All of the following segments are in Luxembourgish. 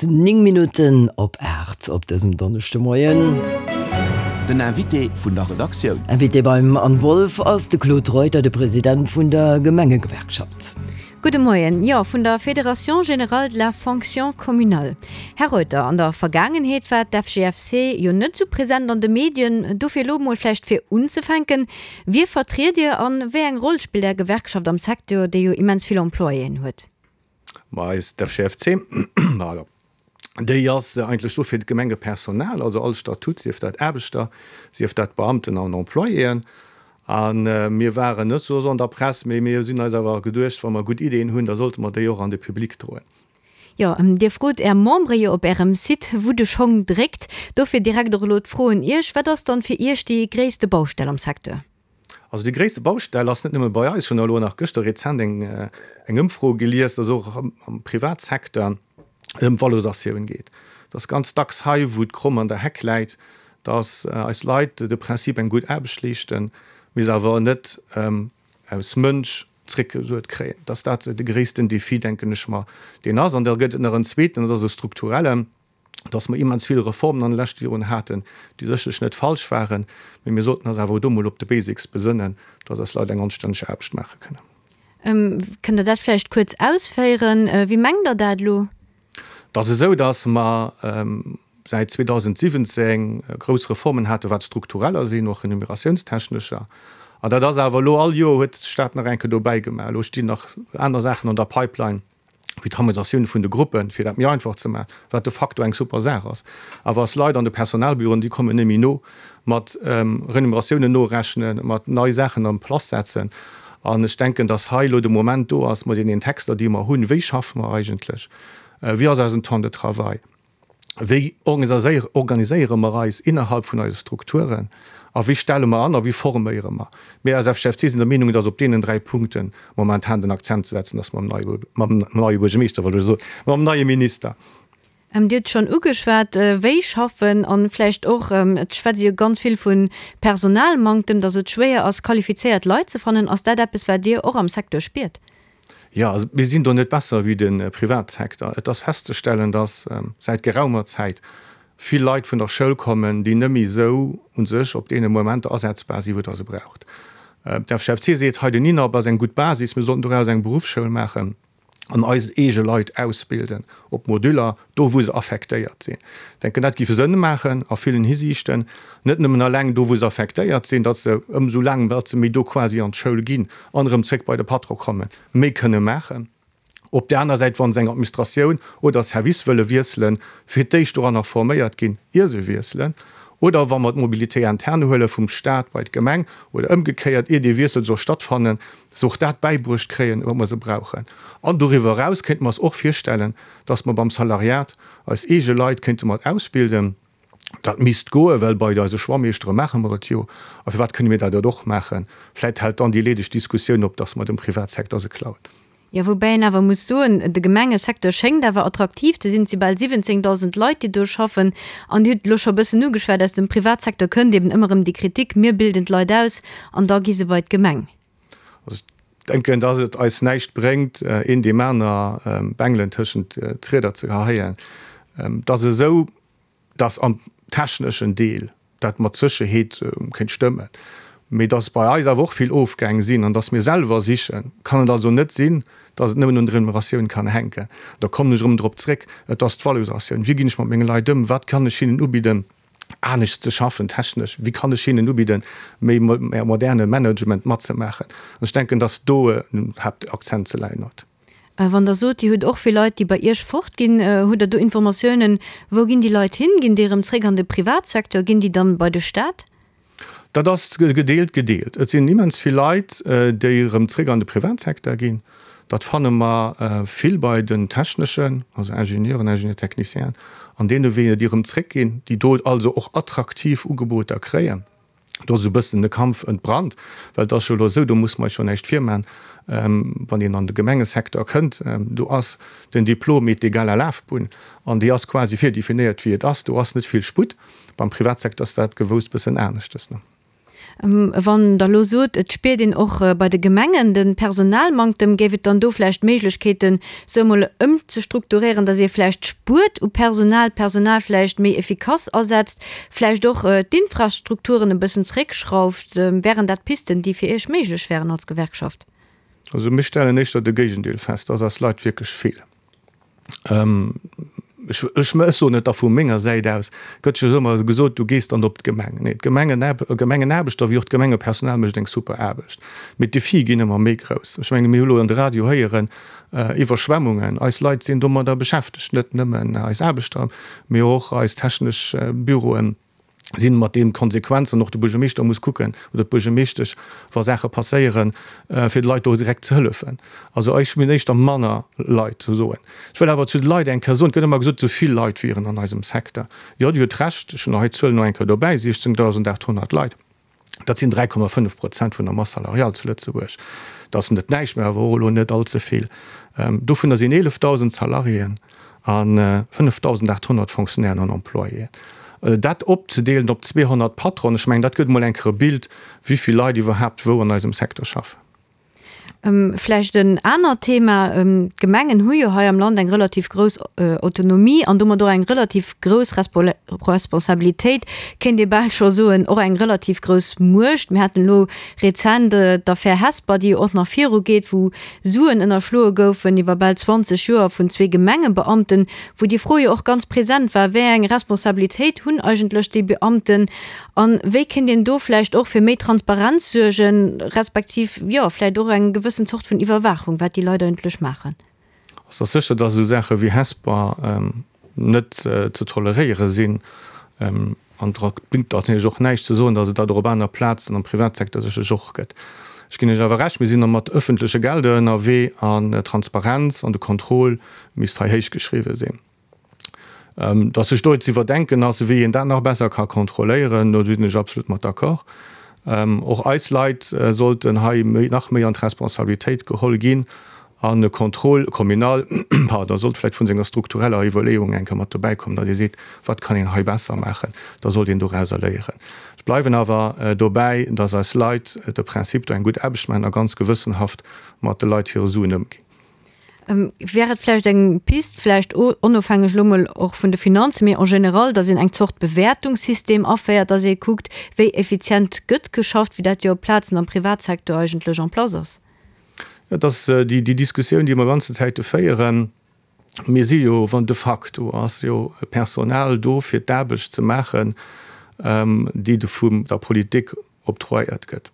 ass 9 Minutten op 8 op dësem Donneschdemoien. Den Invité vun der Redaktioun. Invité beim Anne Wolff ass de Claude Reuter, de President vun der Gemengegewerkschaft. Gudde Moien. Jo, vun der Fédération générale de la fonction communale. Här Reuter, an der Vergaangenheet war d'FGFC jo net sou present an de Medien. Dofir elo mol vläicht fir unzefänken, Wie vertriet Dir an wéi eng Roll spillt Är Gewerkschaft am Secteur, dee jo immens vill Employéen huet? Ma eis d'FGFC, pardon, déi ass eigentlech do fir d'Gemengepersonal, also all Statut, sief dat Aarbechter, sief dat Beamten an Employéen. A mir waren net sou an der Press, mee mir sinn eis awer geduecht, wa mer gutt Ideeën hunn, da sollte mer déi och an de Public droen. Jo, Dir frot Är Membere jo op Ärem Site, wou de Schong dréckt. Dofir direkt och elo d'Fro un Iech, Wat ass dann fir Iech déi gréisste Baustell am Secteur? Also déi gréisste Baustell ass net nëmme bei eis, ech hunn elo nach gëschter rezent eng eng Ëmfro gelies, dass och am Privatsecteur et ëm d'Valorisatioun geet. Et ass ganz dacks hei, wou d'Kromm an der Heck läit, dass eis Leit de Prinzip eng gutt Aarbecht leeschten, mee se awer net aus Mënsch zréckgesuert kréien. Dass dat de gréissten Défi, denken ech mer, deen ass. An da gëtt et nach en zweeten, dat ass e strukturellen, dass mer immens vill Reformen an de leschte Joren haten, déi sécherlech net falsch waren, mee mir sollten eis awer och do mol op de Basics besënnen, dass eis Leit eng anstänneg Aarbecht maache kënnen. Kënnt Der dat vläicht kuerz ausféieren? Wéi mengt Der dat elo? Et ass esou, dass mer säit 2017 grouss Reformen haten, wat struktureller sinn, och remuneratiounstechnescher. An dat ass awer elo, all Joer huet de Stat nach eng Kéier dobäi gemaach. Elo stinn nach aner Saachen an der Pipeline, wéi d'Harmonisatioun vun de Gruppen, fir dat méi einfach ze maachen, wat de facto eng super Saach ass. Awer eis Leit an de Personalbüroen, déi kommen net méi no mat Remuneratiounen norechnen, mat nei Saachen en place setzen. An ech denken, dass hei elo de Moment do ass, mat deenen Texter, déi mer hunn, wéi schaffe mer eigentlech, wéi ass eisen Temps de travail, wéi organiséiere mer eis innerhalb vun eise Strukturen a wéi stelle mer an a wéi forméiere mer. Mir als FGFC sinn der Meenung, dass op deenen 3 Punkte momentan den Akzent ze setzen ass mam neie Buergermeeschter, wollt ech soen, mam neie Minister. Dir hutt schonn ugeschwat, wéi schaffen an vläicht och, et schwätzt ee jo ganz vill vu Personalmanktem, datt et schwéier ass, qualifizéiert Leit ze fannen. Ass dat eppes, wat Dir och am Secteur spiert? Jo, also mir sinn do net besser wéi de Privatsecteur. Et ass festzestellen, datt säit geraumer Zäit vill Leit vun der Schoul kommen, déi net méi esou u sech op deene Momenter asetzbar sinn, wou Der se braucht. D'FGFC seet hei, den INAP ass eng gutt Basis, mir sollten doraus eng Beruffsschoul maachen. an eis eege Leit ausbilden op Moduler, do wou se affektéiert sinn. Ech denken, dat géif Sënn maachen a villen Hisiichten, net nëmmen eleng do wou se affektéiert sinn, datt se ëmsou laang datt se méi do quasi an d'Schoul ginn an erëm zréck bei de Patron kommen, méi kënne maachen. Op där aner Säit, wa se eng Administratioun oder e Service wëlle wiesselen, fir d'éischt doranner forméiert ginn, ier se wiesselen, oder wa mer d'Mobilité interne huele vum Stat bei d'Gemeng oder ëmgekéiert, ier dee Wiessel soll stattfannen, se och dat bäibruecht kréien, wat mer se brauchen. An doriwwer eraus kéinte mer eis och virstellen, dass mer beim Salariat eis eege Leit kéinte mat ausbilden. Dat misst goen, well bei eise Schwammeeschtere maache mer et jo. A firwat kënne mir dat net och maachen? Vläicht hält dann déi leedeg Diskussioun op, dass mer dem Privatsecteur se klauen. Jo, woubäi een awer muss soen, de Gemengesecteur schéngt awer attraktiv ze sinn. Et si bal 17.000 Leit, déi do schaffen. An Dir hutt et elo scho e bëssen ugeschwat, aus dem Privatsecteur kënnt eben ëmmer erëm déi Kritik, mir bilden d'Leit aus an da gi se bei d'Gemeng. Also ech denken, dass et eis näischt bréngt, een deem aner Bengelen tëschent d'Rieder ze geheien. Et ass esou, dass am techneschen Deel dat mat Sécherheet kéint stëmmen, mee dass bei eis awer och vill Ofgäng sinn an dass mir selwer sichen, kann et also net sinn, dass et nëmmen un der Remuneratioun kann hänken. Da kommen ech erëm drop zréck, et ass d'Valorisatioun. Wéi ginn ech mat menge Leit ëm? Wat kann ech hinnen ubidden? Anescht ze schaffen, technesch, wéi kann ech hinnen ubidden, méi moderne Management matzemaachen? An ech denken, dass do den Haaptakzent ze leien huet. Wann Der sot, Dir hutt och vill Leit, déi bei Iech fortginn, hutt Der do Informatiounen, wou ginn déi Leit hin? Ginn déi erëm zréck an de Privatsecteur? Ginn déi dann bei de Staat? Dat ass gedeelt gedeelt. Et sinn immens vill Leit, déi erëm zréck an de Privatsecteur ginn. Dat fanne mer vill bei den techneschen, also Ingenieuren, Ingénieur-technicienen an deene Weeër, déi erëm zréckginn, déi do also och attraktiv Ugeboter kréien. Do ass esou e bëssen de Kampf entbrannt, well et ass jo elo esou, do musse mer eis jo näischt virmaen, wann een an de Gemengesecteur kënnt, do ass den Diplom est égal à Lafbunn an déi ass quasi virdefinéiert wéi et ass. Do ass net vill Sputt. Beim Privatsecteur ass dat gewouss bëssen aneschtes. Wann Der elo sot, et spiert een och bei de Gemengen de Personalmanktem, géif et dann do vläicht Méiglechkeeten, sou emol ëmzestrukturéieren, datt ee vläicht spuert u Personal, d'Personal vläicht méi effikass asetzt, vläicht och d'Infrastrukturen e bëssen zeréckschrauft? Wären dat Pisten, déi fir Iech méiglech wären als Gewerkschaft? Also mir stellen éischter de Géigendeel fest, dass eis Leit wierklech feelen. Ech, ech soen et da vu menger Säit aus, gëtt jo ëmmer gesot, du gees dann op d'Gemeng. Nee, d'Gemengenaarbechter wéi och d'Gemengepersonal mécht eng super Aarbecht. Mee d'Defie ginn ëmmer méi grouss. Ech menge mir hu lo an de Radio héieren, Iwwerschwemmungen, eis Leit sinn domadder beschäftegt, net nëmmen eis Aarbechter, mee och eis technesch Büroen. sinn mat deem Konsequenzen, och de Buergermeeschter muss kucken oder d'Buergermeeschtesch, wa Saache passéieren, fir de Leit do direkt ze hëllefen. Also ech hunn éischter manner Leit ze soen. Ech wëll awer zu de Leit eng Kéier soen, et gëtt ëmmer gesot, esou vill Leit wieren an eisem Secteur. Jo, Dir hutt Recht, ech hunn hei d'Zuelen och eng Kéier dobäi, 16.800 Leit. Dat sinn 3,5 Prozent vun der Masse salariale zu Lëtzebuerg. Dat ass net näischt, mä awer och elo net all ze vill. Dovunner sinn 11.000 Salariéen a 5.800 Fonctionnairen an Employéen. Dat opzedeelen op 200 Patronen, ech mengen, dat gëtt emol eng Kéier e Bild, wéi vill Leit iwwerhaapt wou an eisem Secteur schaffen. Vläicht en anert Thema, D'Gemengen hu jo hei am Land eng relativ grouss Autonomie an domat och eng relativ grouss Responsabilitéit, kéint ee bal scho soen, och eng relativ grouss Muecht. Mir haten elo rezent d'Affär Hesper, déi jo och nach virugeet, wou Suen ënnerschloe goufen iwwer bal 20 Joer vun zwee Gemengebeamten, wou déi Fro jo och ganz present war, Wéi eng Responsabilitéit hunn eigentlech déi Beamten? A wéi kéint een do vläicht och fir méi Transparenz suergen, respektiv, jo, vläicht och eng gewëssen Zort vun Iwwerwaachung, wat déi Leit eigentlech maachen? Et ass sécher, dass esou Saache wéi Hesper net ze toleréiere sinn. An et bréngt natierlech och näischt ze soen, dass et dat och op aner Plazen am Privatsecteur sécherlech och gëtt. Ech ginn Iech awer Recht, mir sinn mat öffentleche Gelder ënnerwee an d'Transparenz an de Contrôle misst hei héichgeschriwwen sinn. Datt sech do ze iwwerdenken ass, wéi een dat nach besser ka kontrolléieren, do sinn ech absolut mat d'accord. Och eis Leit sollten hei nach méi an d'Responsabilitéit geholl ginn an e Contrôle communal, pardon, sollt vläicht vun senger struktureller Iwwerleeung eng Kéier mat dobäi kommen, datt ee seet, wat kann een hei besser maachen, da sollt een dorauser léieren. Ech bleiwen awer dobäi, datt eis Leit de Prinzip do eng gutt Aarbecht maachen a ganz gewëssenhaft mat de Leit hire Suen ëmginn. Wär et vläicht eng Pist, vläicht onofhängeg elo mol och vun de Finanzen, mee en général, datt een eng Zort Bewäertungssystem aféiert, datt ee kuckt, wéi effizient gëtt geschafft, wéi dat jo op Plazen am Privatsecteur eigentlech en place ass? Et ass déi Diskussioun, déi mer ganzen Zäite féieren. Mir si jo, wann de facto ass jo Personal do, fir d'Aarbecht ze maachen, déi vun der Politik Octroyéiert gëtt.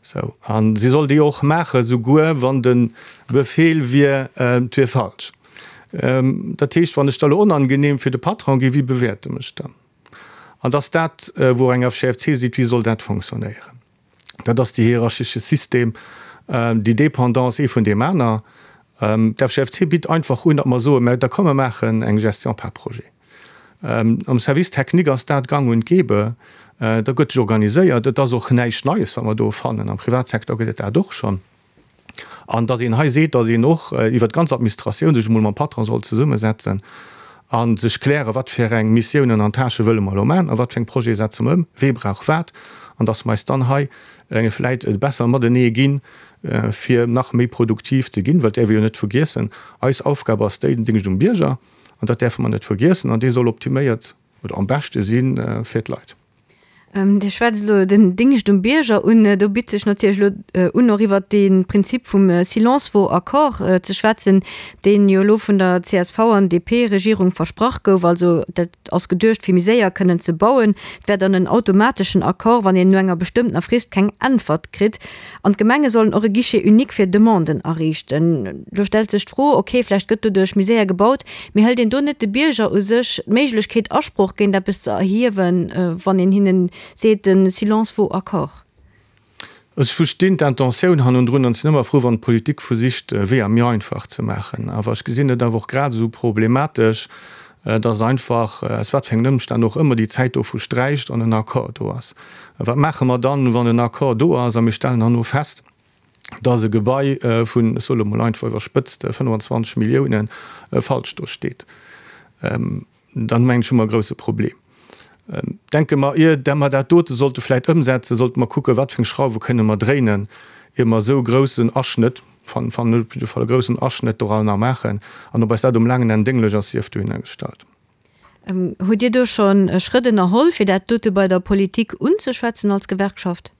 Sou. A si soll déi och maachen, souguer wann de Befehl wier, et wier falsch. Dat heescht, wann ech da elo onangenehm fir de Patron ginn, wie bewäert e mech dann? An dass dat, wou eng FGFC seet, wéi soll dat fonctionnéieren? Dat ass déi hierarchesche System, déi Dépendance ee vun deem aner. D'FGFC bitt einfach un, datt mer soen, mä da komm mer maachen eng Gestion par projet. Am Service technique ass dat gang und gäbe. Da gëtt sech organiséiert. Et ass och näischt Neies, wat mer do fannen. Am Privatsecteur gëtt et dat och schonn. An datt een hei seet, datt een och iwwert d'ganz Administratioun sech emol mam Patron soll zesummesetzen a sech klären, wat fir eng Missiounen an Tâchë wëlle mer elo maachen a wat fir eng Projete setze mer ëm, wee brauch wat, an datt mer eis dann hei vläit besser matenee ginn, fir nach méi produktiv ze ginn. Well et däerf ee jo net vergiessen, eis Aufgab ass déi, den Déngscht um Bierger. An dat däerfe mer net vergiessen. An dee soll optiméiert oder am beschte si fir d'Leit. Dir schwätzt elo den Dingscht um Bierger un. Do bitt sech natierlech elo un, och iwwert dee Prinzip vum Silence vaut accord ze schwätzen, deen jo elo vun der csv an DP-Regierung versprach gouf. Also dat ass geduecht, fir méi séier kënnen ze bauen. Et wär dann en automateschen Accord, wann een no enger bestëmmtener Frist keng Äntwert kritt. An d'Gemenge sollen och e Guichet unique fir Demanden ariichten. Do stellt sech d'Fro, ok, vläicht gëtt doduerch méi séier gebaut, mee hëlt een do net de Bierger u sech d'Méiglechkeet, Asproch géint eppes ze erhiewen, wann een hinnen seet, de silence vaut accord? Ech verstinn d'Intentioun hannendrun an sinn ëmmer frou, wann d'Politik versicht, Weeër méi einfach ze maachen. Awer ech gesinn et awer och grad esou problematesch, dass einfach, aus wat fir engen Ëmstänn och ëmmer, déi Zäit dovu sträicht an en Accord do ass. Wat maache mer dann, wann en Accord do ass a mir stellen herno fest, dass e Gebai vun, ech soe lo mol einfach iwwerspëtzt, 25 Milliounen falsch do steet? Dann, mengen ech, hu mer e grouse Problem. Denke mer, ier mer dat dote sollte vläit ëmsetzen, sollte mer kucken, wat fir eng Schrauwe kënne mer dréinen, ier mer esou e groussen Aschnëtt, fannen ech op jidde Fall, e groussen Aschnëtt doranner maachen. An ob eis dat um laangen Enn dénglech ass, sief dohinner gestallt. Hutt Dir do scho Schrëtt ënnerholl, fir dat dote bei der Politik unzeschwätzen als Gewerkschaft?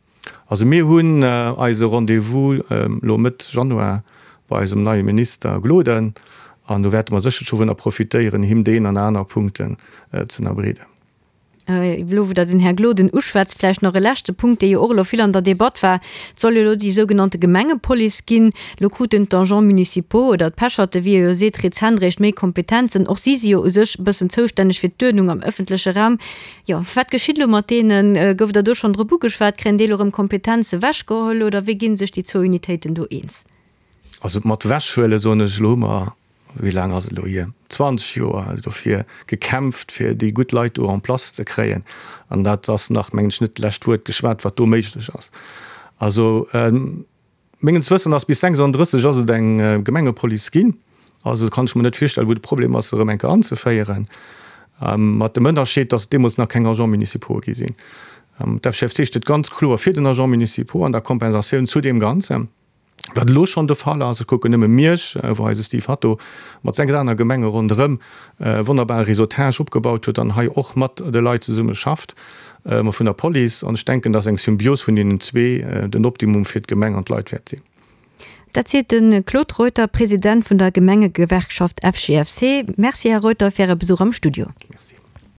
Also mir hunn eise Rendez-vous elo Mëtt Januar bei eisem neie Minister Gloden an do wäerte mer sécherlech dovunner profitéieren, him deen an aner Punkten ze ënnerbreeden. Elo wou Der den Här Gloden uschwätzt, vläicht nach e leschte Punkt, dee jo och elo vill an der Debatt war. Et soll jo elo déi sougenannte Gemengepolice ginn. Elo kruten d'Agents municipaux oder d'Pecherte, wéi ee jo seet, rezent eréischt méi Kompetenzen. Och si si jo u sech e bëssen zoustänneg fir d'Uerdnung am ëffentleche Raum. Jo, wat geschitt elo mat deenen? Gouf der do schonn drop ugeschwat? Kréien déi elo erëm Kompetenze wechgeholl oder wéi gi sech déi zwou Unitéiten do eens? Also mat wechhuele soen ech elo, hu mer, wéi laang ass et elo hier, 20 Joer dofir gekämpft, fir déi gutt Leit do en place ze kréien. An dat ass nach, mengen ech, net d'lescht Wuert geschwat, wat do méiglech ass. Also Mengens Wëssen ass bis 36 ass et eng Gemengepolice ginn. Also kann ech mer net virstellen, wou de Problem ass, se erëm eng Kéier anzeféieren. Mat dem Ënnerscheed, datt et deemools nach keng Agents municipaux gi sinn. D'FGFC steet ganz kloer fir den Agent municipaux an der Kompensatioun zu deem Ganzen, wat elo schonn de Fall ass. Ech kucken nëmme Miersch, wou eise Steve Hatto mat 6 aner Gemenge ronderëm e wonnerbare Réseautage opgebaut huet an hei och mat de Leit zesumme schafft. Mä vun der Police. An ech denken, dass eng Symbios vun deenen zwee den Optimum fir d'Gemeng an d'Leit wäert sinn. Dat seet de Claude Reuter, President vun der Gemengegewerkschaft FGFC. Merci, Här Reuter, fir Äre Besuch am Studio. Merci.